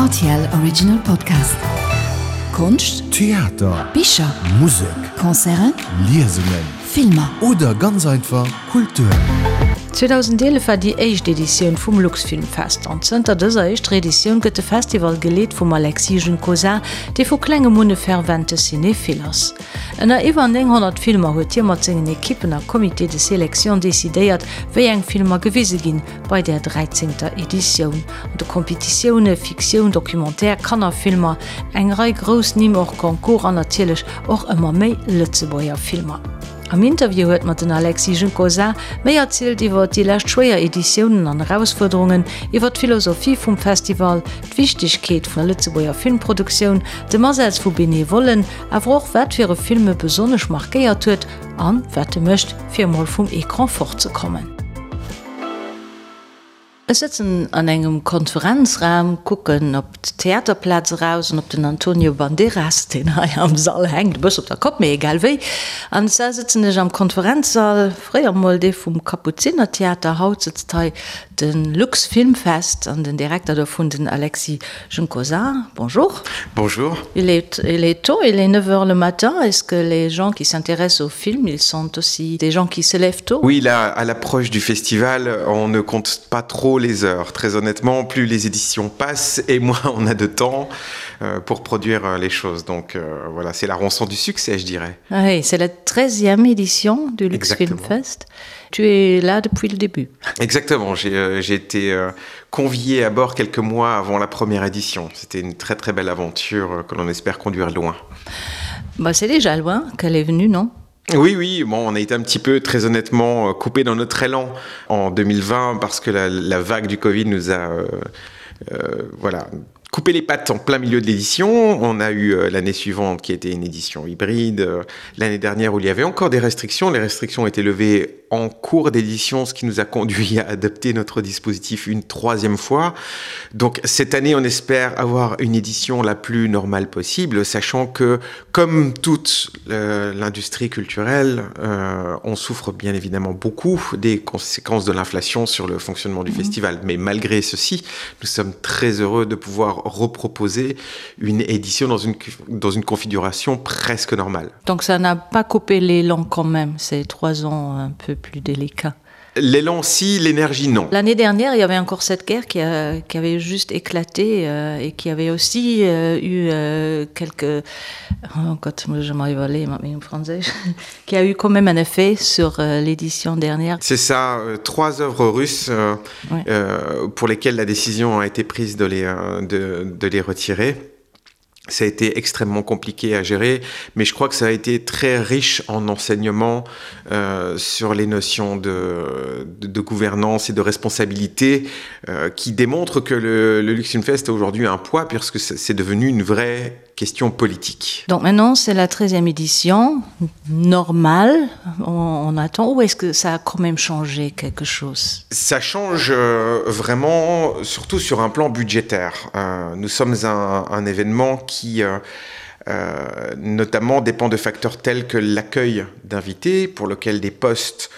RTL Original Podcast. Konscht, Theater, Bicher, Musek, Concerten, Liesungen, Filmer. Oder ganz einfach Kultur. 2011 war déi éischt Editioun vum Luxfilmfest an zënter dëser éischter Editioun gëtt de Festival geleet vum Alexis Juncosa, dee vu klengem un e fervente Cinéphile ass. Ënner iwwer 900 Filmer huet hie mat sengen Ekippen a Comité de sélection decidéiert, wéi eng Filmer gewise ginn bei där dräizéngter Editioun. An de Kompetitioune Fiktioun, Documentaire, Kannerfilmer, eng Rei grouss Nimm hors concours an natierlech och ëmmer méi Lëtzebuerger Filmer. Am Interview huet mer den Alexis Juncosa méi erzielt iwwer déi lescht schwéier Editiounen an Erausfuerderungen, iwwer d'Philosophie vum Festival, d'Wichtegkeet vun der Lëtzebuerger Filmproduktioun, dem Asaz vu Benevollen, awer och wat fir e Film e besonnesch markéiert huet an wat e mécht, fir emol vum Ecran fortzekommen. Ech sëtzen an engem Konferenzraum, kucken op d'Theaterplaz eraus an op den Antonio Banderas, deen hei am Sall hänkt, e bësse op der Kopp, mee egal wéi. An zwar sëtzen ech am Konferenzsall, fréier mol dee vum Kapuzinertheater, haut sëtzt hei de Luxfilmfest an den Direkter dovun, den Alexis Juncosa. Bonjour. Bonjour. Il est, il est tôt, il est 9 heures le matin. Est-ce que les gens qui s'intéressent au film, ils sont aussi des gens qui se lèvent tôt? Oui, là, à l'approche du festival, on ne compte pas trop les heures. Très honnêtement, plus les éditions passent et moins on a de temps euh, pour produire euh, les choses. Donc euh, voilà, c'est la rançon du succès, je dirais. Ah oui, c'est la 13e édition du Lux Film Fest. Tu es là depuis le début. Exactement, j'ai euh, été euh, convié à bord quelques mois avant la première édition. C'était une très très belle aventure euh, que l'on espère conduire loin. Bah, c'est déjà loin qu'elle est venue, non Oui, oui, bon, on a été un petit peu très honnêtement euh, coupé dans notre élan en 2020 parce que la, la vague du Covid nous a euh, euh, voilà, coupé les pattes en plein milieu de l'édition. On a eu euh, l'année suivante qui était une édition hybride, euh, l'année dernière où il y avait encore des restrictions. Les restrictions ont été levées en cours d'édition, ce qui nous a conduit à adapter notre dispositif une troisième fois. Donc cette année, on espère avoir une édition la plus normale possible, sachant que comme toute euh, l'industrie culturelle, euh, on souffre bien évidemment beaucoup des conséquences de l'inflation sur le fonctionnement du mmh. festival. Mais malgré ceci, nous sommes très heureux de pouvoir reproposer une édition dans une, dans une configuration presque normale. Donc ça n'a pas coupé l'élan quand même, ces trois ans un peu plus délicat. L'élan si, l'énergie non. L'année dernière, il y avait encore cette guerre qui, a, qui avait juste éclaté euh, et qui avait aussi euh, eu euh, quelques oh, quand je m'arrive aller français qui a eu quand même un effet sur euh, l'édition dernière. C'est ça, euh, trois œuvres russes euh, ouais. euh, pour lesquelles la décision a été prise de les, euh, de, de les retirer. Ça a été extrêmement compliqué à gérer, mais je crois que ça a été très riche en enseignement euh, sur les notions de, de, de gouvernance et de responsabilité euh, qui démontrent que le, le Luxemfest a aujourd'hui un poids puisque c'est devenu une vraie question politique. Donc maintenant c'est la 13e édition normale, on, on attend ou est-ce que ça a quand même changé quelque chose? Ça change euh, vraiment surtout sur un plan budgétaire. Euh, nous sommes un, un événement qui euh, euh, notamment dépend de facteurs tels que l'accueil d'invités pour lequel des postes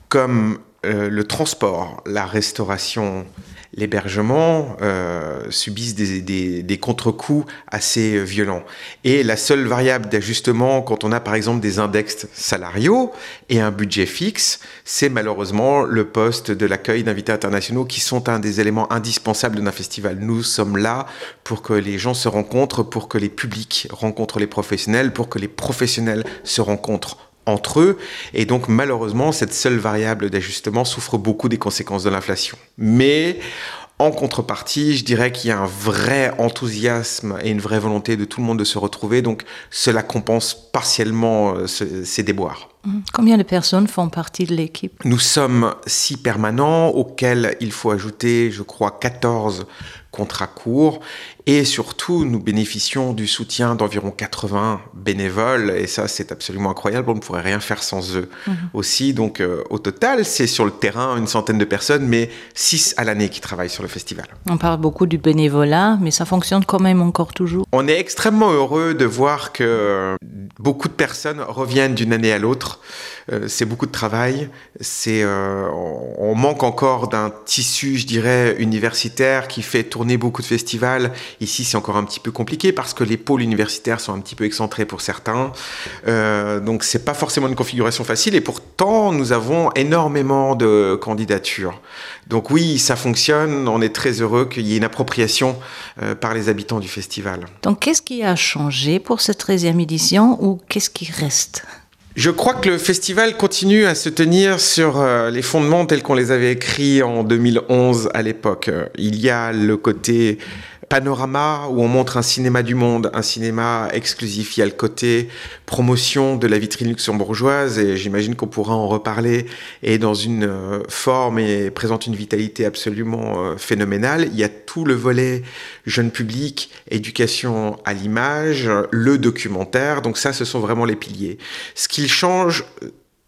comme euh, le transport, la restauration, l'hébergement euh, subissent des, des, des contre-coups assez violents. Et la seule variable d'ajustement quand on a par exemple des index salariaux et un budget fixe, c'est malheureusement le poste de l'accueil d'invités internationaux qui sont un des éléments indispensables d'un festival. Nous sommes là pour que les gens se rencontrent, pour que les publics rencontrent les professionnels, pour que les professionnels se rencontrent entre eux et donc malheureusement cette seule variable d'ajustement souffre beaucoup des conséquences de l'inflation mais en contrepartie je dirais qu'il y a un vrai enthousiasme et une vraie volonté de tout le monde de se retrouver donc cela compense partiellement euh, ce, ces déboires mmh. Combien de personnes font partie de l'équipe Nous sommes six permanents auxquels il faut ajouter je crois 14 contrats courts et surtout nous bénéficions du soutien d'environ 80 bénévoles et ça c'est absolument incroyable on ne pourrait rien faire sans eux mmh. aussi donc euh, au total c'est sur le terrain une centaine de personnes mais six à l'année qui travaillent sur le festival. On parle beaucoup du bénévolat mais ça fonctionne quand même encore toujours. On est extrêmement heureux de voir que beaucoup de personnes reviennent d'une année à l'autre. autres. Euh, c'est beaucoup de travail, c'est euh, on manque encore d'un tissu, je dirais, universitaire qui fait tourner beaucoup de festivals. Ici, c'est encore un petit peu compliqué parce que les pôles universitaires sont un petit peu excentrés pour certains. Euh, donc c'est pas forcément une configuration facile et pourtant nous avons énormément de candidatures. Donc oui, ça fonctionne, on est très heureux qu'il y ait une appropriation euh, par les habitants du festival. Donc qu'est-ce qui a changé pour cette 13e édition ou qu'est-ce qui reste? Je crois que le festival continue à se tenir sur euh, les fondements tels qu'on les avait écrits en 2011 à l'époque. Il y a le côté panorama où on montre un cinéma du monde, un cinéma exclusif. Il y a le côté promotion de la vitrine luxembourgeoise et j'imagine qu'on pourra en reparler et dans une euh, forme et présente une vitalité absolument euh, phénoménale. Il y a tout le volet jeune public, éducation à l'image, le documentaire. Donc ça, ce sont vraiment les piliers. Ce qu'il change,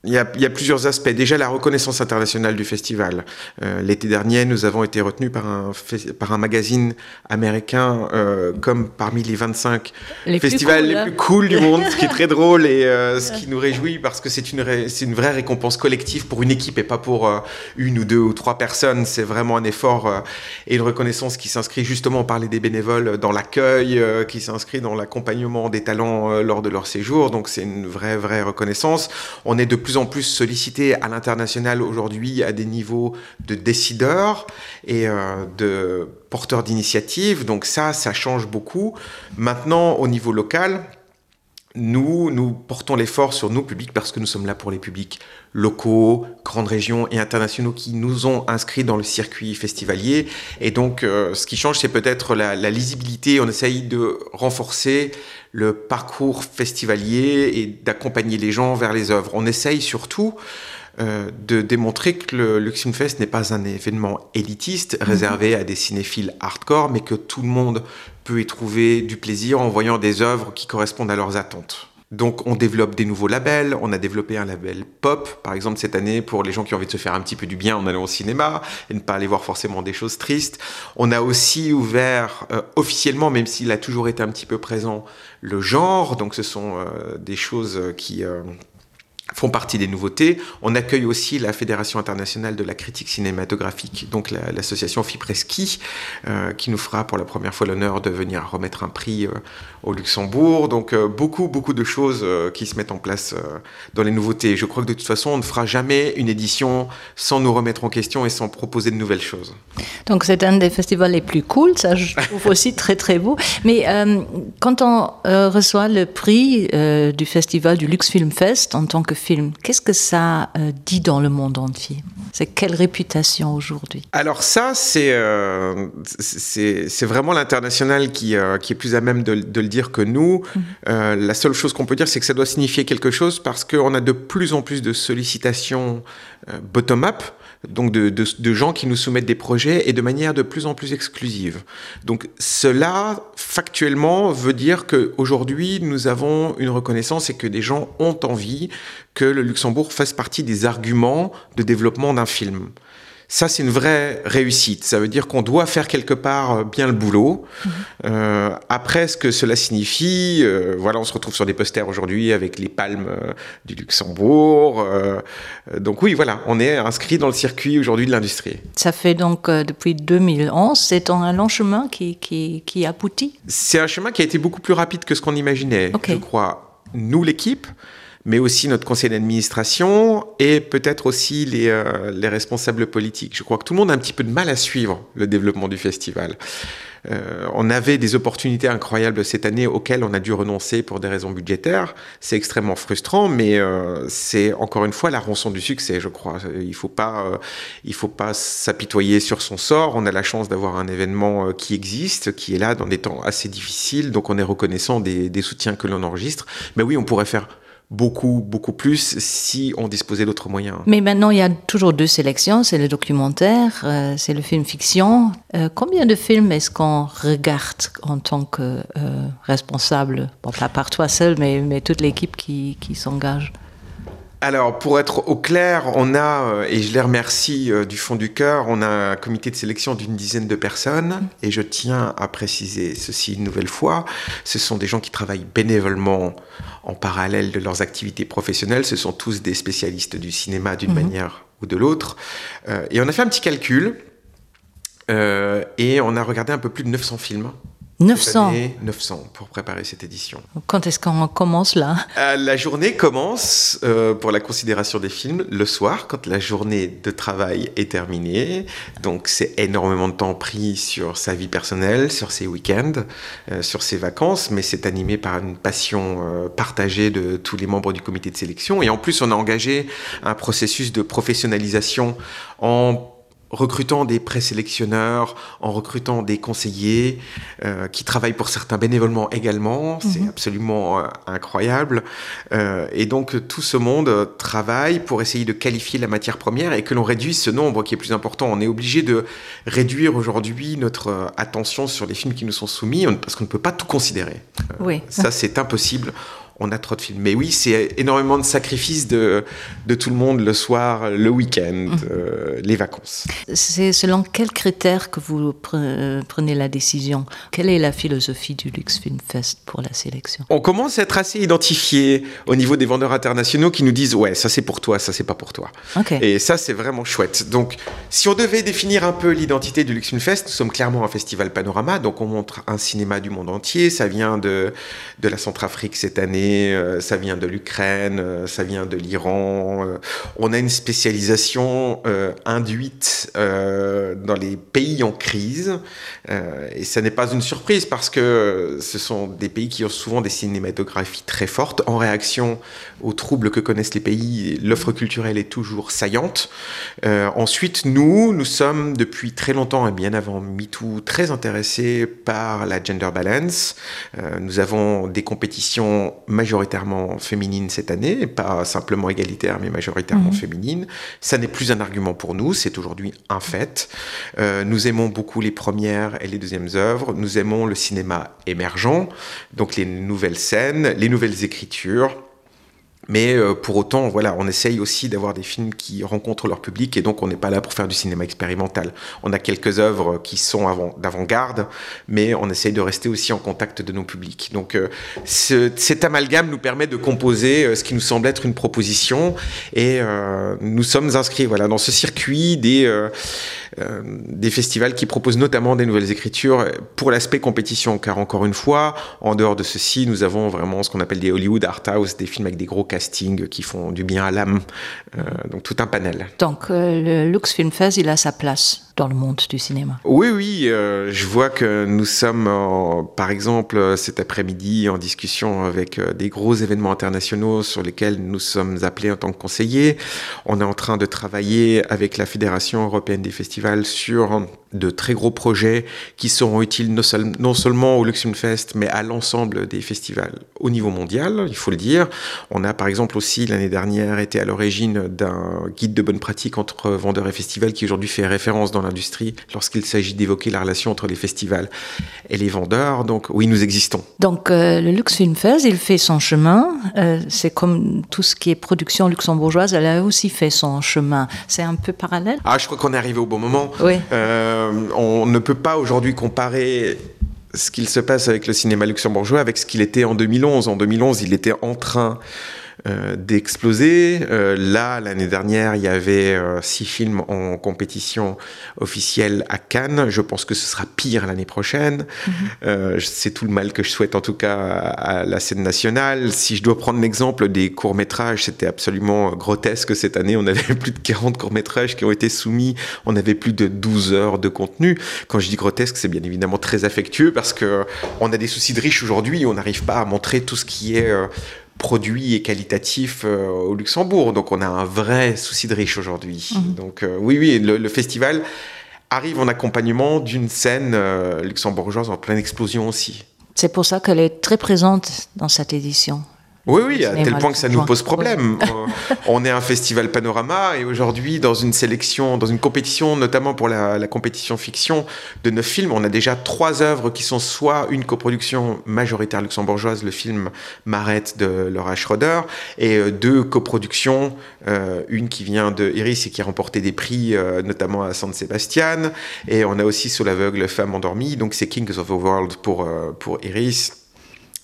Il y, a, il y a plusieurs aspects. Déjà la reconnaissance internationale du festival. Euh, L'été dernier, nous avons été retenus par un, par un magazine américain euh, comme parmi les 25 les festivals plus cool, les plus cool du monde, ce qui est très drôle et euh, ce qui nous réjouit parce que c'est une, une vraie récompense collective pour une équipe et pas pour euh, une ou deux ou trois personnes. C'est vraiment un effort euh, et une reconnaissance qui s'inscrit justement par les des bénévoles dans l'accueil, euh, qui s'inscrit dans l'accompagnement des talents euh, lors de leur séjour. Donc c'est une vraie, vraie reconnaissance. On est de plus en plus sollicité à l'international aujourd'hui à des niveaux de décideurs et euh, de porteurs d'initiatives. Donc ça, ça change beaucoup. Maintenant, au niveau local, nous, nous portons l'effort sur nos publics parce que nous sommes là pour les publics locaux, grandes régions et internationaux qui nous ont inscrits dans le circuit festivalier. Et donc, euh, ce qui change, c'est peut-être la, la lisibilité. On essaye de renforcer le parcours festivalier et d'accompagner les gens vers les œuvres. On essaye surtout euh, de démontrer que le Luxemfest n'est pas un événement élitiste mhm. réservé à des cinéphiles hardcore, mais que tout le monde peut y trouver du plaisir en voyant des œuvres qui correspondent à leurs attentes. Donc on développe des nouveaux labels, on a développé un label pop par exemple cette année pour les gens qui ont envie de se faire un petit peu du bien en allant au cinéma et ne pas aller voir forcément des choses tristes. On a aussi ouvert euh, officiellement, même s'il a toujours été un petit peu présent, le genre, donc ce sont euh, des choses qui euh, font partie des nouveautés. On accueille aussi la Fédération internationale de la critique cinématographique, donc l'association la, Fipreski, euh, qui nous fera pour la première fois l'honneur de venir remettre un prix euh, au Luxembourg. Donc euh, beaucoup, beaucoup de choses euh, qui se mettent en place euh, dans les nouveautés. Je crois que de toute façon, on ne fera jamais une édition sans nous remettre en question et sans proposer de nouvelles choses. Donc c'est un des festivals les plus cool, ça je trouve aussi très très beau. Mais euh, quand on euh, reçoit le prix euh, du festival du Lux Film Fest en tant que film, qu'est-ce que ça euh, dit dans le monde entier? C'est quelle réputation aujourd'hui? Alors ça c'est euh, vraiment l'international qui, euh, qui est plus à même de, de le dire que nous. Mmh. Euh, la seule chose qu'on peut dire c'est que ça doit signifier quelque chose parce qu'on a de plus en plus de sollicitations euh, bottom-up donc de, de, de gens qui nous soumettent des projets et de manière de plus en plus exclusive. Donc cela factuellement veut dire que aujourd'hui nous avons une reconnaissance et que des gens ont envie que le Luxembourg fasse partie des arguments de développement d'un film. Ça, c'est une vraie réussite. Ça veut dire qu'on doit faire quelque part euh, bien le boulot. Mmh. Euh, après, ce que cela signifie, euh, voilà, on se retrouve sur des posters aujourd'hui avec les palmes euh, du Luxembourg. Euh, donc oui, voilà, on est inscrit dans le circuit aujourd'hui de l'industrie. Ça fait donc euh, depuis 2011, c'est un long chemin qui, qui, qui aboutit. C'est un chemin qui a été beaucoup plus rapide que ce qu'on imaginait, okay. je crois. Nous, l'équipe, mais aussi notre conseil d'administration et peut-être aussi les, euh, les responsables politiques. Je crois que tout le monde a un petit peu de mal à suivre le développement du festival. Euh, on avait des opportunités incroyables cette année auxquelles on a dû renoncer pour des raisons budgétaires. C'est extrêmement frustrant, mais euh, c'est encore une fois la rançon du succès, je crois. Il faut pas, euh, il faut pas s'apitoyer sur son sort. On a la chance d'avoir un événement euh, qui existe, qui est là dans des temps assez difficiles, donc on est reconnaissant des, des soutiens que l'on enregistre. Mais oui, on pourrait faire beaucoup beaucoup plus si on disposait d'autres moyens. Mais maintenant il y a toujours deux sélections, c'est le documentaire, euh, c'est le film fiction. Euh, combien de films est-ce qu'on regarde en tant que euh, responsable bon, pas par toi seul mais, mais toute l'équipe qui, qui s'engage? Alors pour être au clair, on a euh, et je les remercie euh, du fond du cœur, on a un comité de sélection d'une dizaine de personnes et je tiens à préciser ceci une nouvelle fois, ce sont des gens qui travaillent bénévolement en parallèle de leurs activités professionnelles, ce sont tous des spécialistes du cinéma d'une mm -hmm. manière ou de l'autre. Euh, et on a fait un petit calcul euh, et on a regardé un peu plus de 900 films. 900 année, 900 pour préparer cette édition. Quand est-ce qu'on commence là euh, La journée commence euh, pour la considération des films le soir quand la journée de travail est terminée. Donc c'est énormément de temps pris sur sa vie personnelle, sur ses week-ends, euh, sur ses vacances, mais c'est animé par une passion euh, partagée de tous les membres du comité de sélection. Et en plus on a engagé un processus de professionnalisation en recrutant des présélectionneurs, en recrutant des conseillers euh, qui travaillent pour certains bénévolement également, c'est mm -hmm. absolument euh, incroyable. Euh, et donc tout ce monde travaille pour essayer de qualifier la matière première et que l'on réduise ce nombre qui est plus important. On est obligé de réduire aujourd'hui notre euh, attention sur les films qui nous sont soumis parce qu'on ne peut pas tout considérer. Euh, oui. Ça c'est impossible on a trop de films. Mais oui, c'est énormément de sacrifices de, de tout le monde le soir, le week-end, mmh. euh, les vacances. C'est selon quels critères que vous pre prenez la décision Quelle est la philosophie du Lux Film Fest pour la sélection On commence à être assez identifié au niveau des vendeurs internationaux qui nous disent ouais, ça c'est pour toi, ça c'est pas pour toi. Okay. Et ça c'est vraiment chouette. Donc si on devait définir un peu l'identité du Lux Film Fest, nous sommes clairement un festival panorama, donc on montre un cinéma du monde entier, ça vient de, de la Centrafrique cette année, euh, ça vient de l'Ukraine, euh, ça vient de l'Iran. Euh, on a une spécialisation induite dans les pays en crise et ça n'est pas une surprise parce que ce sont des pays qui ont souvent des cinématographies très fortes en réaction aux troubles que connaissent les pays, l'offre culturelle est toujours saillante. Euh, ensuite, nous, nous sommes depuis très longtemps et bien avant MeToo très intéressés par la gender balance. Euh, nous avons des compétitions majoritairement féminines cette année, pas simplement égalitaire mais majoritairement mmh. féminines. Ça n'est plus un argument pour nous, c'est aujourd'hui un fait. Euh, nous aimons beaucoup les premières et les deuxièmes œuvres, nous aimons le cinéma émergent, donc les nouvelles scènes, les nouvelles écritures. Mais euh, pour autant, voilà, on essaye aussi d'avoir des films qui rencontrent leur public et donc on n'est pas là pour faire du cinéma expérimental. On a quelques œuvres qui sont d'avant-garde, mais on essaye de rester aussi en contact de nos publics. Donc euh, ce, cet amalgame nous permet de composer euh, ce qui nous semble être une proposition et euh, nous sommes inscrits voilà, dans ce circuit des, euh, euh, des festivals qui proposent notamment des nouvelles écritures pour l'aspect compétition, car encore une fois, en dehors de ceci, nous avons vraiment ce qu'on appelle des Hollywood Art House, des films avec des gros casting qui font du bien à l'âme euh, donc tout un panel. Donc euh, le Lux Film Fest, il a sa place dans le monde du cinéma. Oui oui, euh, je vois que nous sommes en, par exemple cet après-midi en discussion avec euh, des gros événements internationaux sur lesquels nous sommes appelés en tant que conseillers. On est en train de travailler avec la Fédération européenne des festivals sur de très gros projets qui seront utiles non, seul, non seulement au Luxemfest mais à l'ensemble des festivals au niveau mondial, il faut le dire. On a par exemple aussi l'année dernière été à l'origine d'un guide de bonne pratique entre vendeurs et festivals qui aujourd'hui fait référence dans l'industrie lorsqu'il s'agit d'évoquer la relation entre les festivals et les vendeurs. Donc oui, nous existons. Donc euh, le Luxfilmfest, il fait son chemin. Euh, C'est comme tout ce qui est production luxembourgeoise, elle a aussi fait son chemin. C'est un peu parallèle. Ah, je crois qu'on est arrivé au bon moment. Oui. Euh, on ne peut pas aujourd'hui comparer ce qu'il se passe avec le cinéma luxembourgeois avec ce qu'il était en 2011. En 2011, il était en train euh, d'exploser. Euh, là, l'année dernière, il y avait euh, six films en compétition officielle à Cannes. Je pense que ce sera pire l'année prochaine. Mm -hmm. euh, C'est tout le mal que je souhaite en tout cas à, à la scène nationale. Si je dois prendre l'exemple des courts-métrages, c'était absolument grotesque cette année. On avait plus de 40 courts-métrages qui ont été soumis. On avait plus de 12 heures de contenu. Quand je dis grotesque, c'est bien évidemment très affectueux parce que on a des soucis de riches aujourd'hui. On n'arrive pas à montrer tout ce qui est euh, produit et qualitatif euh, au Luxembourg. Donc on a un vrai souci de riche aujourd'hui. Mmh. Donc euh, oui, oui, le, le festival arrive en accompagnement d'une scène euh, luxembourgeoise en pleine explosion aussi. C'est pour ça qu'elle est très présente dans cette édition. Oui, oui, à tel point que ça nous pose problème. Euh, on est un festival panorama et aujourd'hui, dans une sélection, dans une compétition, notamment pour la, la compétition fiction de neuf films, on a déjà trois œuvres qui sont soit une coproduction majoritaire luxembourgeoise, le film Marette de Laura Schroeder, et euh, deux coproductions, euh, une qui vient de Iris et qui a remporté des prix, euh, notamment à San Sebastian, et on a aussi Sous l'aveugle, Femme endormie, donc c'est Kings of the World pour, euh, pour Iris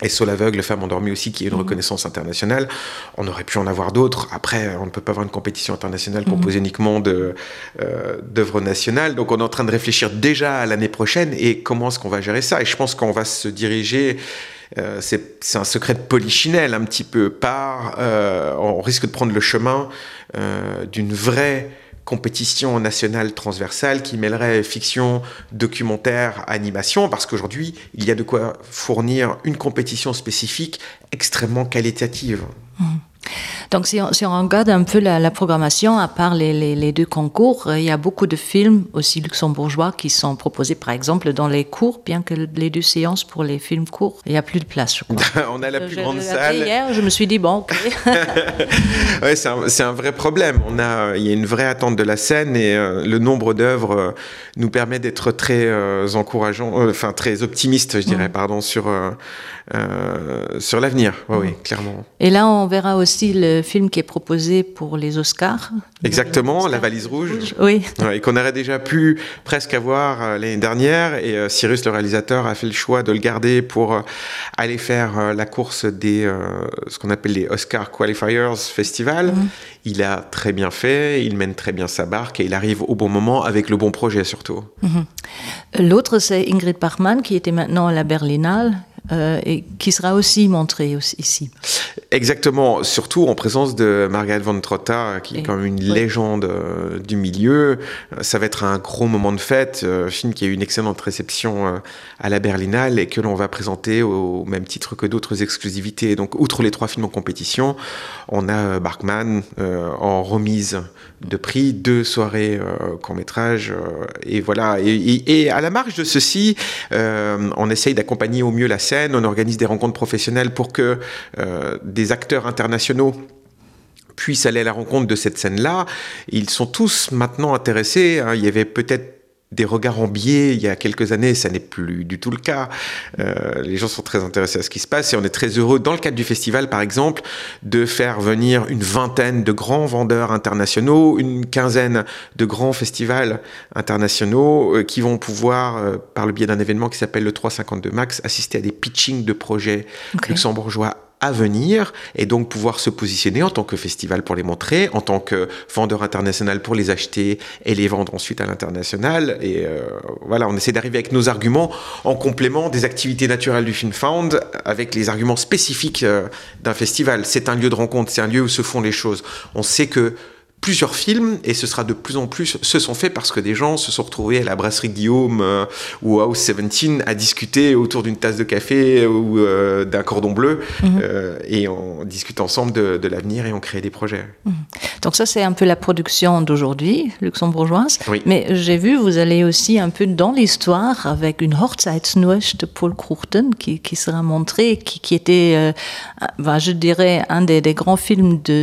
et Sol aveugle, femme endormie aussi, qui est une mmh. reconnaissance internationale. On aurait pu en avoir d'autres. Après, on ne peut pas avoir une compétition internationale mhm. composée mmh. uniquement de euh, d'œuvres nationales. Donc on est en train de réfléchir déjà à l'année prochaine et comment est-ce qu'on va gérer ça. Et je pense qu'on va se diriger euh, c'est un secret de polichinelle un petit peu par euh, on risque de prendre le chemin euh, d'une vraie compétition nationale transversale qui mêlerait fiction, documentaire, animation, parce qu'aujourd'hui, il y a de quoi fournir une compétition spécifique extrêmement qualitative. Mmh. Donc si on, si on regarde un peu la, la programmation, à part les, les, les deux concours, euh, il y a beaucoup de films aussi luxembourgeois qui sont proposés par exemple dans les cours, bien que les deux séances pour les films courts, il n'y a plus de place. Je crois. on a la plus je, grande salle. Hier, je me suis dit bon. Okay. ouais, c'est un, un vrai problème. On a, il y a une vraie attente de la scène et euh, le nombre d'œuvres euh, nous permet d'être très euh, encourageant, euh, enfin très optimiste, je dirais, mmh. pardon, sur, euh, euh, sur l'avenir. Ouais, mmh. Oui, clairement. Et là, on verra aussi le film qui est proposé pour les Oscars. Exactement, les Oscars. La valise rouge. rouge. Oui. Ouais, et qu'on aurait déjà pu presque avoir euh, l'année dernière. Et euh, Cyrus, le réalisateur, a fait le choix de le garder pour euh, aller faire euh, la course des euh, ce qu'on appelle les Oscar Qualifiers Festival. Mmh. Il a très bien fait, il mène très bien sa barque et il arrive au bon moment avec le bon projet surtout. Mmh. L'autre, c'est Ingrid Bachmann qui était maintenant à la Berlinale euh, et qui sera aussi montré aussi, ici. Exactement, surtout en présence de Margaret von Trotta, qui est quand même une oui. légende euh, du milieu. Ça va être un gros moment de fête, euh, film qui a eu une excellente réception euh, à la Berlinale et que l'on va présenter au même titre que d'autres exclusivités. Donc, outre les trois films en compétition, on a euh, Barkman euh, en remise de prix, deux soirées euh, court métrage euh, et voilà. Et, et, et à la marge de ceci, euh, on essaye d'accompagner au mieux la scène, on organise des rencontres professionnelles pour que euh, des acteurs internationaux puissent aller à la rencontre de cette scène-là. Ils sont tous maintenant intéressés. Hein. Il y avait peut-être des regards en biais il y a quelques années, ça n'est plus du tout le cas. Euh, les gens sont très intéressés à ce qui se passe et on est très heureux dans le cadre du festival par exemple de faire venir une vingtaine de grands vendeurs internationaux, une quinzaine de grands festivals internationaux euh, qui vont pouvoir euh, par le biais d'un événement qui s'appelle le 352 Max assister à des pitchings de projets okay. luxembourgeois à venir et donc pouvoir se positionner en tant que festival pour les montrer, en tant que vendeur international pour les acheter et les vendre ensuite à l'international. Et euh, voilà, on essaie d'arriver avec nos arguments en complément des activités naturelles du Film Found avec les arguments spécifiques euh, d'un festival. C'est un lieu de rencontre, c'est un lieu où se font les choses. On sait que plusieurs films et ce sera de plus en plus se sont faits parce que des gens se sont retrouvés à la brasserie Guillaume euh, ou House 17 à discuter autour d'une tasse de café ou euh, d'un cordon bleu mm -hmm. euh, et on discute ensemble de, de l'avenir et on crée des projets. Mm -hmm. Donc ça c'est un peu la production d'aujourd'hui luxembourgeoise oui. mais j'ai vu vous allez aussi un peu dans l'histoire avec une Hochzeitsnuecht de Paul Croughton qui, qui sera montré qui, qui était euh, ben, je dirais un des, des grands films de,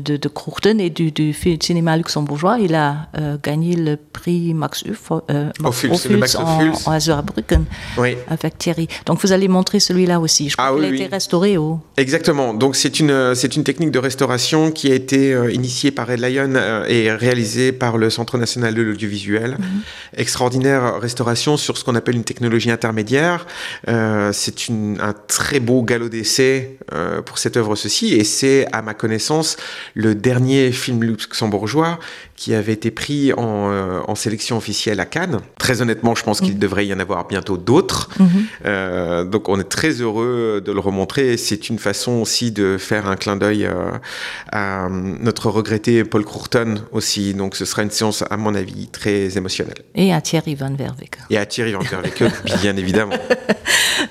de, de Croughton et du, du cinéma luxembourgeois il a euh, gagné le prix Max Uf, euh, Max Ophuls, Max en, en Azurbrücken oui. avec Thierry donc vous allez montrer celui-là aussi je crois ah, oui, a oui. été restauré au exactement donc c'est une euh, c'est une technique de restauration qui a été euh, initiée par Red Lion euh, et réalisée par le Centre national de l'audiovisuel mm -hmm. extraordinaire restauration sur ce qu'on appelle une technologie intermédiaire euh, c'est une un très beau galop d'essai euh, pour cette œuvre ceci et c'est à ma connaissance le dernier film luxembourgeois qui avait été pris en, euh, en sélection officielle à Cannes. Très honnêtement, je pense qu'il mmh. devrait y en avoir bientôt d'autres. Mmh. Euh, donc on est très heureux de le remontrer. C'est une façon aussi de faire un clin d'œil euh, à notre regretté Paul Crourton aussi. Donc ce sera une séance à mon avis très émotionnelle. Et à Thierry van Verweke. Et à Thierry van Verweke, bien évidemment.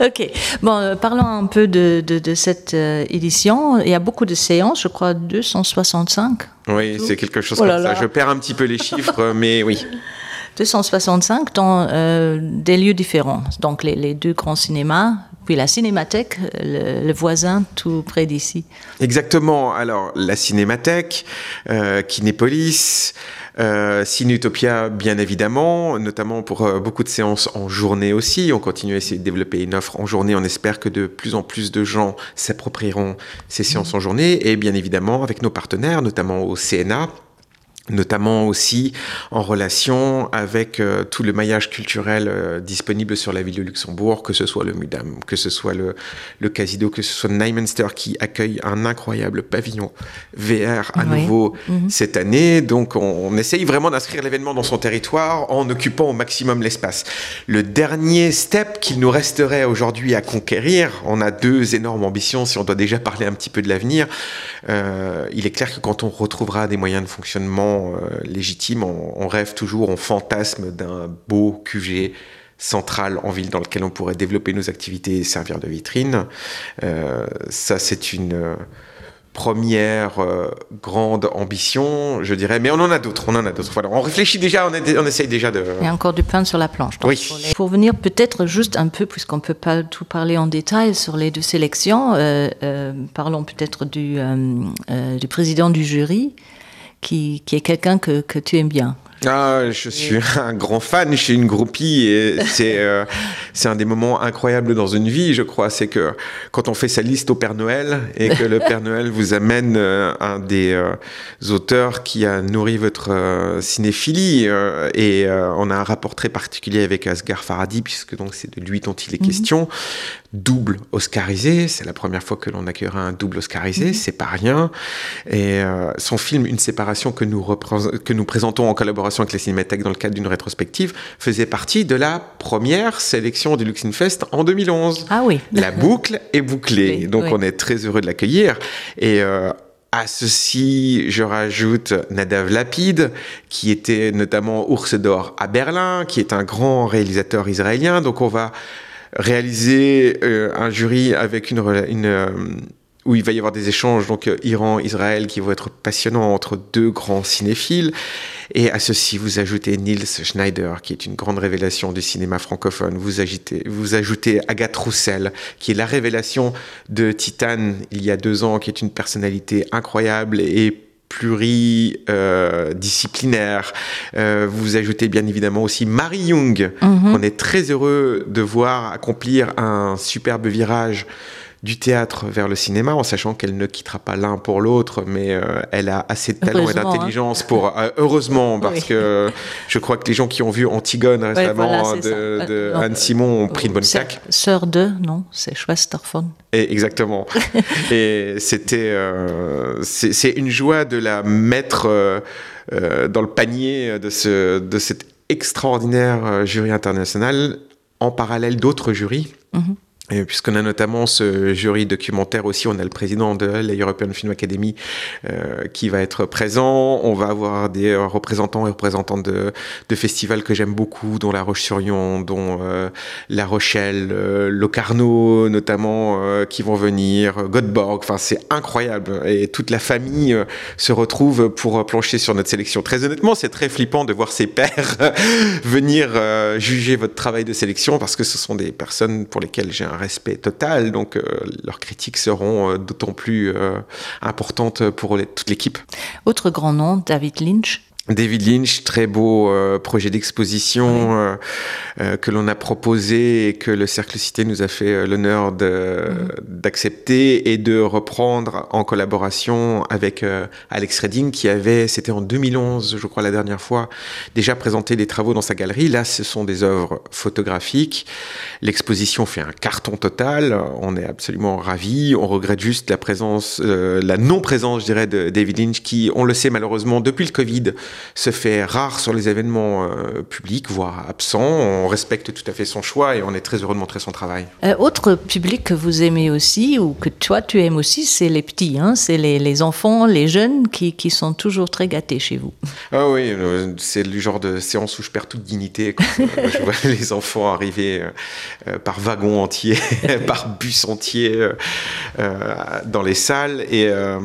Ok. Bon, euh, parlons un peu de, de, de cette euh, édition. Il y a beaucoup de séances, je crois 265. Oui, c'est quelque chose oh comme ça. Je perds un petit peu les chiffres, mais oui. 265 dans euh, des lieux différents. Donc les, les deux grands cinémas, Puis la Cinémathèque, le, le voisin tout près d'ici. Exactement. Alors la Cinémathèque, euh, Kinépolis, euh, Cinutopia bien évidemment, notamment pour euh, beaucoup de séances en journée aussi. On continue à essayer de développer une offre en journée. On espère que de plus en plus de gens s'approprieront ces séances en journée et bien évidemment avec nos partenaires, notamment au CNA, notamment aussi en relation avec euh, tout le maillage culturel euh, disponible sur la ville de Luxembourg, que ce soit le Mudam, que ce soit le, le Casido, que ce soit Nymenster qui accueille un incroyable pavillon VR à oui. nouveau mm -hmm. cette année. Donc on, on essaye vraiment d'inscrire l'événement dans son territoire en occupant au maximum l'espace. Le dernier step qu'il nous resterait aujourd'hui à conquérir, on a deux énormes ambitions si on doit déjà parler un petit peu de l'avenir. Euh, il est clair que quand on retrouvera des moyens de fonctionnement euh, légitime, on, on rêve toujours, on fantasme d'un beau QG central en ville dans lequel on pourrait développer nos activités et servir de vitrine. Euh, ça, c'est une euh, première euh, grande ambition, je dirais, mais on en a d'autres, on en a d'autres. Voilà, on réfléchit déjà, on, est, on essaye déjà de... Il y a encore du pain sur la planche. Donc, oui. Pour, les... pour venir peut-être juste un peu, puisqu'on ne peut pas tout parler en détail sur les deux sélections, euh, euh, parlons peut-être du, euh, euh, du président du jury, qui, qui est quelqu'un que, que tu aimes bien. Ah, je suis un grand fan, je suis une groupie et c'est euh, c'est un des moments incroyables dans une vie, je crois, c'est que quand on fait sa liste au Père Noël et que le Père Noël vous amène euh, un des euh, auteurs qui a nourri votre euh, cinéphilie euh, et euh, on a un rapport très particulier avec Asghar Farhadi puisque donc c'est de lui dont il est mm -hmm. question double oscarisé, c'est la première fois que l'on accueillera un double oscarisé, mm -hmm. c'est pas rien et euh, son film une séparation que nous que nous présentons en collaboration avec la Cinémathèque dans le cadre d'une rétrospective faisait partie de la première sélection du Luxinfest en 2011. Ah oui. La boucle est bouclée, oui, donc oui. on est très heureux de l'accueillir et euh, À ceci, je rajoute Nadav Lapide, qui était notamment Ours d'or à Berlin, qui est un grand réalisateur israélien. Donc on va réaliser euh, un jury avec une, une euh, où il va y avoir des échanges donc euh, Iran Israël qui vont être passionnants entre deux grands cinéphiles et à ceci vous ajoutez Niels Schneider qui est une grande révélation du cinéma francophone vous agitez vous ajoutez Agathe Roussel qui est la révélation de Titane il y a deux ans qui est une personnalité incroyable et pluridisciplinaire. Euh, euh, vous ajoutez bien évidemment aussi Marie Jung mm -hmm. on est très heureux de voir accomplir un superbe virage du théâtre vers le cinéma en sachant qu'elle ne quittera pas l'un pour l'autre mais euh, elle a assez de talent et d'intelligence pour euh, heureusement parce oui. que je crois que les gens qui ont vu Antigone récemment ouais, voilà, de, de euh, Anne Simon ont pris une bonne claque sœur de non c'est Schwesterfon et exactement et c'était euh, c'est une joie de la mettre euh, euh, dans le panier de ce de cet extraordinaire euh, jury international en parallèle d'autres jurys mm -hmm. Et puisqu'on a notamment ce jury documentaire aussi, on a le président de la European Film Academy euh, qui va être présent. On va avoir des représentants et représentantes de, de festivals que j'aime beaucoup, dont La Roche-sur-Yon, dont euh, La Rochelle, euh, Locarno notamment, euh, qui vont venir, Göteborg. Enfin, c'est incroyable. Et toute la famille euh, se retrouve pour plancher sur notre sélection. Très honnêtement, c'est très flippant de voir ses pairs venir euh, juger votre travail de sélection parce que ce sont des personnes pour lesquelles j'ai un respect total donc euh, leurs critiques seront euh, d'autant plus euh, importantes pour les, toute l'équipe autre grand nom David Lynch David Lynch, très beau euh, projet d'exposition oui. euh, euh, que l'on a proposé et que le Cercle Cité nous a fait euh, l'honneur mmh. d'accepter et de reprendre en collaboration avec euh, Alex Redding qui avait, c'était en 2011, je crois la dernière fois, déjà présenté des travaux dans sa galerie. Là, ce sont des œuvres photographiques. L'exposition fait un carton total. On est absolument ravis. On regrette juste la présence, euh, la non-présence, je dirais, de David Lynch qui, on le sait malheureusement, depuis le Covid, se fait rare sur les événements euh, publics, voire absent. On respecte tout à fait son choix et on est très heureux de montrer son travail. Euh, autre public que vous aimez aussi ou que toi tu aimes aussi, c'est les petits, hein, c'est les, les enfants, les jeunes qui, qui sont toujours très gâtés chez vous. Ah oui, euh, c'est le genre de séance où je perds toute dignité quand euh, je vois les enfants arriver euh, par wagon entier, par bus entier euh, euh, dans les salles. Et euh,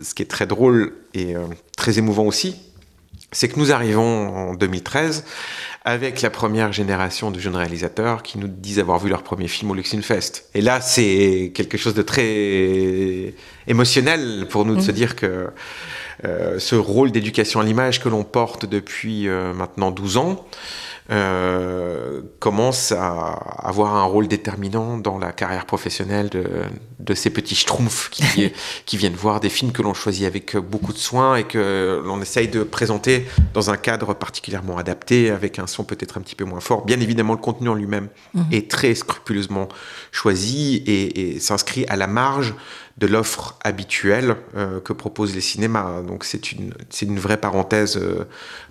ce qui est très drôle et euh, très émouvant aussi. C'est que nous arrivons en 2013 avec la première génération de jeunes réalisateurs qui nous disent avoir vu leur premier film au Luxinfest. Et là, c'est quelque chose de très émotionnel pour nous de mmh. se dire que euh, ce rôle d'éducation à l'image que l'on porte depuis euh, maintenant 12 ans, euh, commence à avoir un rôle déterminant dans la carrière professionnelle de, de ces petits schtroumpfs qui, qui viennent voir des films que l'on choisit avec beaucoup de soin et que l'on essaye de présenter dans un cadre particulièrement adapté avec un son peut-être un petit peu moins fort. Bien évidemment, le contenu en lui-même mmh. est très scrupuleusement choisi et, et s'inscrit à la marge de l'offre habituelle euh, que proposent les cinémas. Donc c'est une, une vraie parenthèse euh,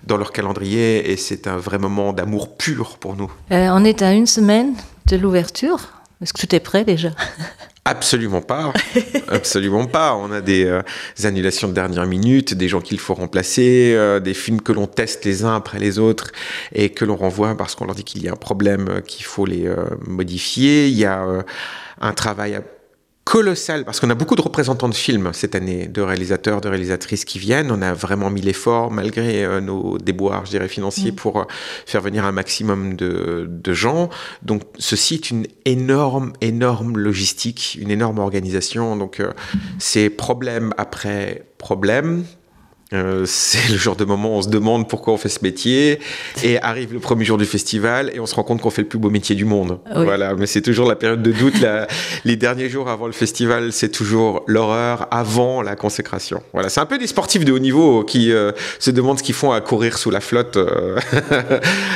dans leur calendrier et c'est un vrai moment d'amour pur pour nous. Euh, on est à une semaine de l'ouverture. Est-ce que tout est prêt déjà Absolument pas absolument pas on a des, euh, des annulations de dernière minute des gens qu'il faut remplacer euh, des films que l'on teste les uns après les autres et que l'on renvoie parce qu'on leur dit qu'il y a un problème euh, qu'il faut les euh, modifier il y a euh, un travail à colossal parce qu'on a beaucoup de représentants de films cette année de réalisateurs de réalisatrices qui viennent on a vraiment mis l'effort malgré euh, nos déboires je dirais financiers mmh. pour euh, faire venir un maximum de, de gens donc ceci est une énorme énorme logistique une énorme organisation donc euh, c'est problème après problème Euh, c'est le genre de moment où on se demande pourquoi on fait ce métier et arrive le premier jour du festival et on se rend compte qu'on fait le plus beau métier du monde oui. voilà mais c'est toujours la période de doute la, les derniers jours avant le festival c'est toujours l'horreur avant la consécration voilà c'est un peu des sportifs de haut niveau qui euh, se demandent ce qu'ils font à courir sous la flotte euh,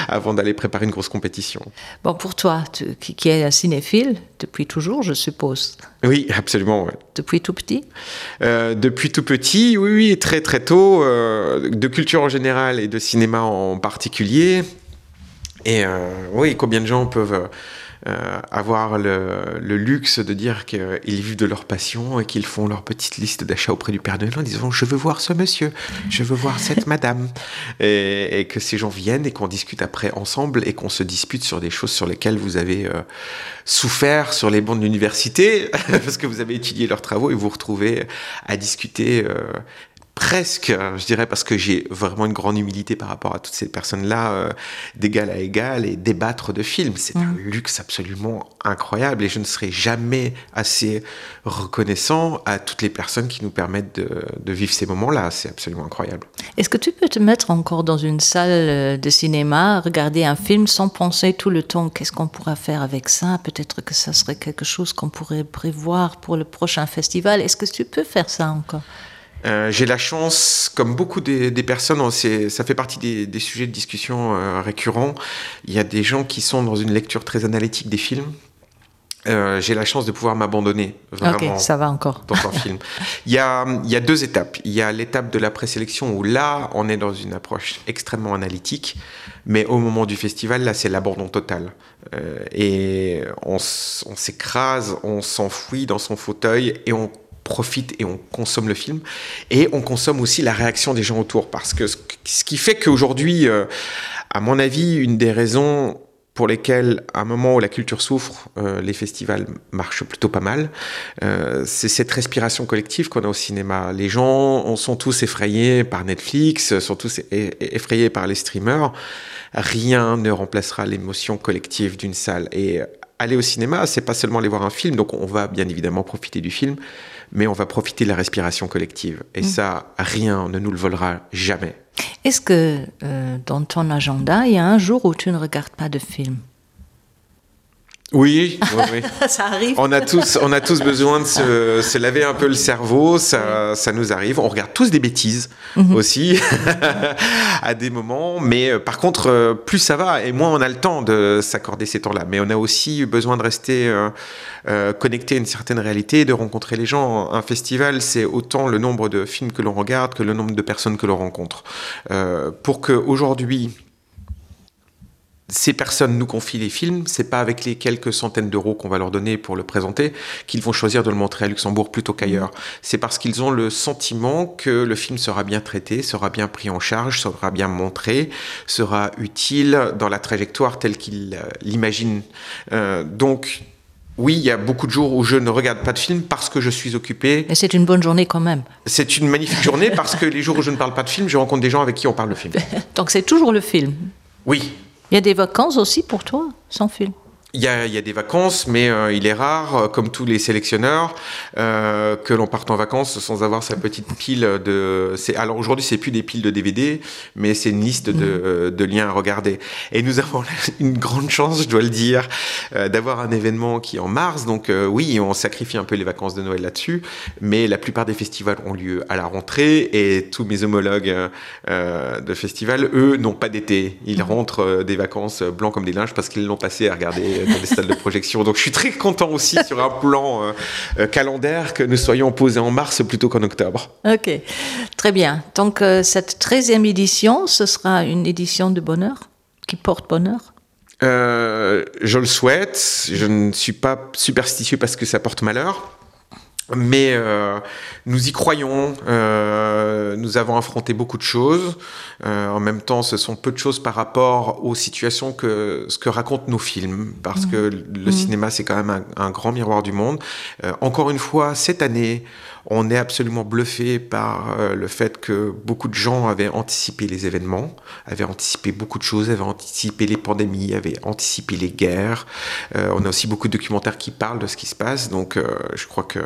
avant d'aller préparer une grosse compétition bon pour toi tu, qui, qui est un cinéphile depuis toujours je suppose oui absolument ouais. depuis tout petit euh, depuis tout petit oui oui très très tôt euh, de culture en général et de cinéma en particulier et euh, oui combien de gens peuvent euh, euh, avoir le, le luxe de dire qu'ils vivent de leur passion et qu'ils font leur petite liste d'achat auprès du Père Noël en disant je veux voir ce monsieur, je veux voir cette madame et, et que ces gens viennent et qu'on discute après ensemble et qu'on se dispute sur des choses sur lesquelles vous avez euh, souffert sur les bancs de l'université parce que vous avez étudié leurs travaux et vous retrouvez à discuter euh, presque je dirais parce que j'ai vraiment une grande humilité par rapport à toutes ces personnes là euh, d'égal à égal et débattre de films c'est mmh. un luxe absolument incroyable et je ne serai jamais assez reconnaissant à toutes les personnes qui nous permettent de, de vivre ces moments là c'est absolument incroyable est-ce que tu peux te mettre encore dans une salle euh, de cinéma regarder un film sans penser tout le temps qu'est-ce qu'on pourra faire avec ça peut-être que ça serait quelque chose qu'on pourrait prévoir pour le prochain festival est-ce que tu peux faire ça encore Euh, j'ai la chance, comme beaucoup des, des personnes, ça fait partie des, des sujets de discussion euh, récurrents. Il y a des gens qui sont dans une lecture très analytique des films. Euh, j'ai la chance de pouvoir m'abandonner okay, ça va encore dans un film. Il y a, il y a deux étapes. Il y a l'étape de la présélection où là, on est dans une approche extrêmement analytique, mais au moment du festival, là, c'est l'abandon total. Euh, et on, on s'écrase, on s'enfouit dans son fauteuil et on profite et on consomme le film et on consomme aussi la réaction des gens autour parce que ce qui fait qu'aujourd'hui euh, à mon avis une des raisons pour lesquelles à un moment où la culture souffre euh, les festivals marchent plutôt pas mal euh, c'est cette respiration collective qu'on a au cinéma les gens on sont tous effrayés par netflix sont tous effrayés par les streamers rien ne remplacera l'émotion collective d'une salle et aller au cinéma c'est pas seulement aller voir un film donc on va bien évidemment profiter du film mais on va profiter de la respiration collective et mmh. ça rien ne nous le volera jamais est-ce que euh, dans ton agenda il y a un jour où tu ne regardes pas de film Oui, oui, oui. ça arrive. On a tous, on a tous besoin de se, se laver un peu le cerveau, ça, ça nous arrive. On regarde tous des bêtises mm -hmm. aussi à des moments, mais euh, par contre, euh, plus ça va et moins on a le temps de s'accorder ces temps-là. Mais on a aussi besoin de rester euh, euh, connecté à une certaine réalité, de rencontrer les gens. Un festival, c'est autant le nombre de films que l'on regarde que le nombre de personnes que l'on rencontre. Euh, pour que aujourd'hui, ces personnes nous confient les films, c'est pas avec les quelques centaines d'euros qu'on va leur donner pour le présenter qu'ils vont choisir de le montrer à Luxembourg plutôt qu'ailleurs. C'est parce qu'ils ont le sentiment que le film sera bien traité, sera bien pris en charge, sera bien montré, sera utile dans la trajectoire telle qu'ils euh, l'imaginent. Euh, donc, Oui, il y a beaucoup de jours où je ne regarde pas de film parce que je suis occupé. Mais c'est une bonne journée quand même. C'est une magnifique journée parce que les jours où je ne parle pas de film, je rencontre des gens avec qui on parle de film. Donc c'est toujours le film. Oui. Il y a des vacances aussi pour toi sans film. Il y, a, il y a des vacances, mais euh, il est rare, euh, comme tous les sélectionneurs, euh, que l'on parte en vacances sans avoir sa petite pile de. Alors aujourd'hui, c'est plus des piles de DVD, mais c'est une liste de, mmh. Euh, de liens à regarder. Et nous avons une grande chance, je dois le dire, euh, d'avoir un événement qui est en mars. Donc euh, oui, on sacrifie un peu les vacances de Noël là-dessus, mais la plupart des festivals ont lieu à la rentrée et tous mes homologues euh, de festivals, eux, n'ont pas d'été. Ils mmh. rentrent euh, des vacances blancs comme des linges parce qu'ils l'ont passé à regarder dans des salles de projection. Donc je suis très content aussi sur un plan euh, euh, calendaire que nous soyons posés en mars plutôt qu'en octobre. Ok, très bien. Donc euh, cette 13e édition, ce sera une édition de bonheur qui porte bonheur euh, Je le souhaite. Je ne suis pas superstitieux parce que ça porte malheur. Mais euh, nous y croyons, euh, nous avons affronté beaucoup de choses. Euh, en même temps, ce sont peu de choses par rapport aux situations que ce que racontent nos films, parce mmh. que le mmh. cinéma, c'est quand même un, un grand miroir du monde. Euh, encore une fois, cette année, on est absolument bluffé par euh, le fait que beaucoup de gens avaient anticipé les événements, avaient anticipé beaucoup de choses, avaient anticipé les pandémies, avaient anticipé les guerres. Euh, on a aussi beaucoup de documentaires qui parlent de ce qui se passe, donc euh, je crois que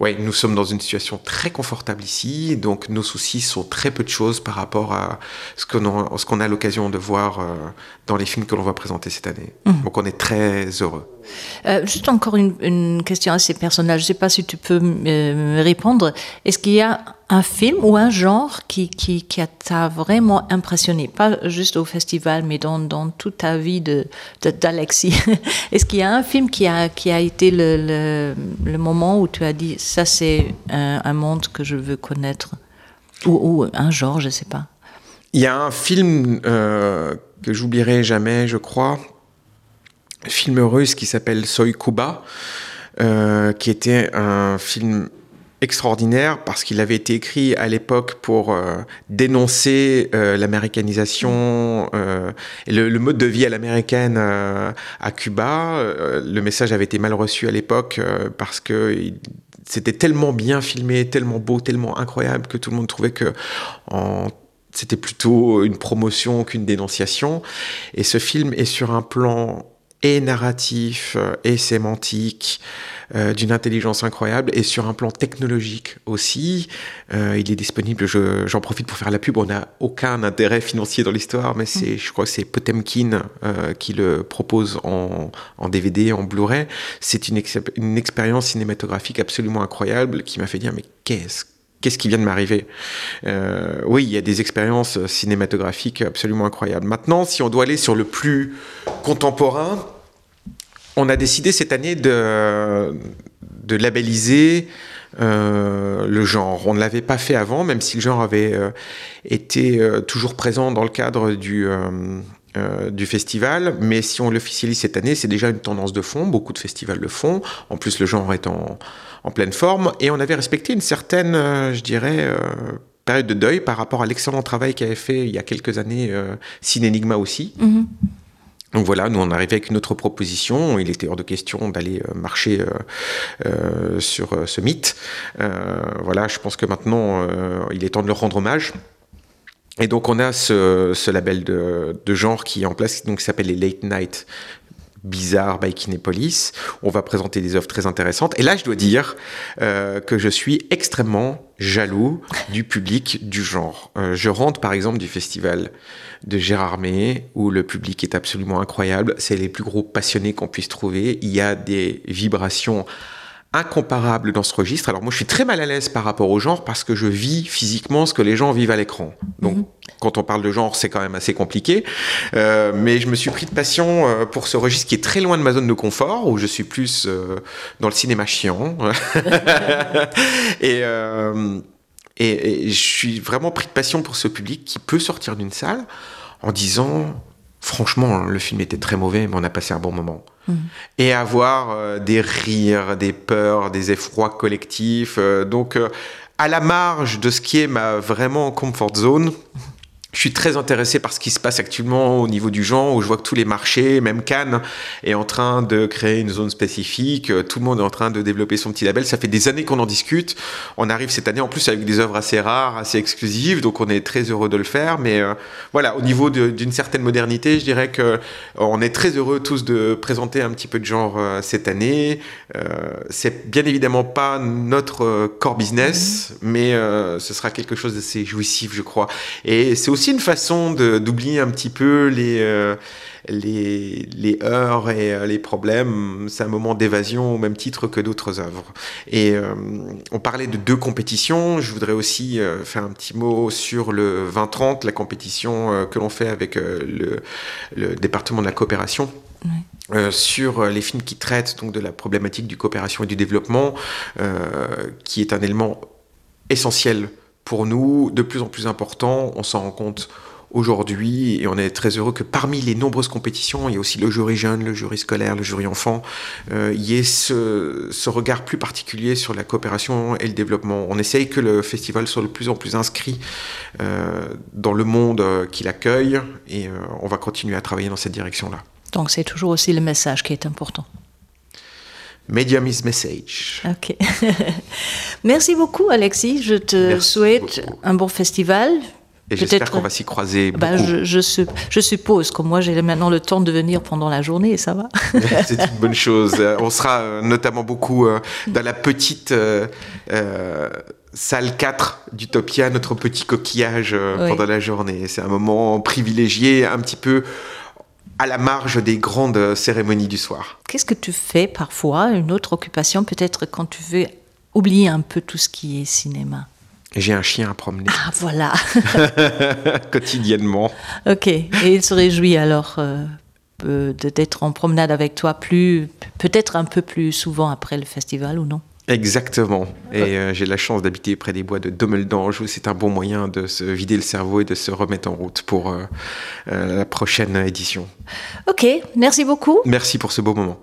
ouais, nous sommes dans une situation très confortable ici, donc nos soucis sont très peu de choses par rapport à ce qu'on ce qu'on a l'occasion de voir euh, dans les films que l'on va présenter cette année. Mmh. Donc on est très heureux. Euh, juste encore une, une question assez personnelle, je ne sais pas si tu peux me répondre. Est-ce qu'il y a un film ou un genre qui, qui, qui t'a vraiment impressionné, pas juste au festival, mais dans, dans toute ta vie d'Alexis de, de, Est-ce qu'il y a un film qui a, qui a été le, le, le moment où tu as dit ça c'est un, un monde que je veux connaître ou, ou un genre, je ne sais pas. Il y a un film euh, que j'oublierai jamais, je crois, film russe qui s'appelle Soy Cuba, euh, qui était un film extraordinaire parce qu'il avait été écrit à l'époque pour euh, dénoncer euh, l'américanisation euh, et le, le mode de vie à l'américaine euh, à Cuba. Euh, le message avait été mal reçu à l'époque euh, parce que il, c'était tellement bien filmé, tellement beau, tellement incroyable que tout le monde trouvait que en c'était plutôt une promotion qu'une dénonciation. Et ce film est sur un plan et narratif euh, et sémantique euh, d'une intelligence incroyable et sur un plan technologique aussi. Euh, il est disponible, j'en je, profite pour faire la pub, on n'a aucun intérêt financier dans l'histoire, mais c'est, je crois que c'est Potemkin euh, qui le propose en, en DVD, en Blu-ray. C'est une, ex une expérience cinématographique absolument incroyable qui m'a fait dire mais qu'est-ce qu'est-ce qui vient de m'arriver euh, oui il y a des expériences cinématographiques absolument incroyables maintenant si on doit aller sur le plus contemporain on a décidé cette année de, de labelliser euh, le genre. On ne l'avait pas fait avant, même si le genre avait euh, été euh, toujours présent dans le cadre du, euh, euh, du festival. Mais si on l'officialise cette année, c'est déjà une tendance de fond. Beaucoup de festivals le font. En plus, le genre est en, en pleine forme. Et on avait respecté une certaine, euh, je dirais, euh, période de deuil par rapport à l'excellent travail qu'avait fait il y a quelques années euh, Cinénigma aussi. Mm -hmm. Donc voilà, nous on arrivait avec une autre proposition, il était hors de question d'aller euh, marcher euh, euh, sur euh, ce mythe. Euh, voilà, je pense que maintenant euh, il est temps de leur rendre hommage. Et donc on a ce, ce label de, de genre qui est en place, donc s'appelle les Late Night bizarre by Kinépolis. On va présenter des œuvres très intéressantes. Et là, je dois dire euh, que je suis extrêmement jaloux du public du genre. Euh, je rentre par exemple du festival de Gérardmer où le public est absolument incroyable. C'est les plus gros passionnés qu'on puisse trouver. Il y a des vibrations incomparable dans ce registre. Alors moi je suis très mal à l'aise par rapport au genre parce que je vis physiquement ce que les gens vivent à l'écran. Donc mm -hmm. quand on parle de genre, c'est quand même assez compliqué. Euh, mais je me suis pris de passion euh, pour ce registre qui est très loin de ma zone de confort où je suis plus euh, dans le cinéma chiant. et, euh, et, et je suis vraiment pris de passion pour ce public qui peut sortir d'une salle en disant franchement le film était très mauvais mais on a passé un bon moment mmh. et avoir euh, des rires des peurs des effrois collectifs euh, donc euh, à la marge de ce qui est ma vraiment comfort zone Je suis très intéressé par ce qui se passe actuellement au niveau du genre où je vois que tous les marchés, même Cannes, est en train de créer une zone spécifique. Tout le monde est en train de développer son petit label. Ça fait des années qu'on en discute. On arrive cette année en plus avec des œuvres assez rares, assez exclusives, donc on est très heureux de le faire. Mais euh, voilà, au niveau d'une certaine modernité, je dirais que euh, on est très heureux tous de présenter un petit peu de genre euh, cette année. Euh, C'est bien évidemment pas notre euh, core business, mmh. mais euh, ce sera quelque chose d'assez jouissif, je crois. Et c'est aussi une façon d'oublier un petit peu les, euh, les, les heures et euh, les problèmes. C'est un moment d'évasion au même titre que d'autres œuvres. Et euh, on parlait de deux compétitions. Je voudrais aussi euh, faire un petit mot sur le 2030, la compétition euh, que l'on fait avec euh, le, le département de la coopération. Oui. Euh, sur euh, les films qui traitent donc de la problématique du coopération et du développement euh, qui est un élément essentiel pour nous de plus en plus important on s'en rend compte aujourd'hui et on est très heureux que parmi les nombreuses compétitions il y a aussi le jury jeune le jury scolaire le jury enfant euh, il y ait ce, ce regard plus particulier sur la coopération et le développement on essaye que le festival soit de plus en plus inscrit euh, dans le monde euh, qu'il accueille et euh, on va continuer à travailler dans cette direction là donc c'est toujours aussi le message qui est important Medium is message. Ok. Merci beaucoup Alexis, je te Merci souhaite beaucoup. un bon festival. Et j'espère qu'on va s'y croiser. Bah, je, je, je suppose que moi j'ai maintenant le temps de venir pendant la journée et ça va. C'est une bonne chose. On sera euh, notamment beaucoup euh, dans la petite euh, euh, salle 4 d'Utopia, notre petit coquillage euh, oui. pendant la journée. C'est un moment privilégié un petit peu à la marge des grandes cérémonies du soir. Qu'est-ce que tu fais parfois, une autre occupation peut-être quand tu veux oublier un peu tout ce qui est cinéma? J'ai un chien à promener. Ah voilà quotidiennement. Ok et il se réjouit alors euh, d'être en promenade avec toi plus peut-être un peu plus souvent après le festival ou non? Exactement. Et euh, j'ai la chance d'habiter près des bois de Dommeldange où c'est un bon moyen de se vider le cerveau et de se remettre en route pour euh, euh, la prochaine édition. Ok, merci beaucoup. Merci pour ce beau moment.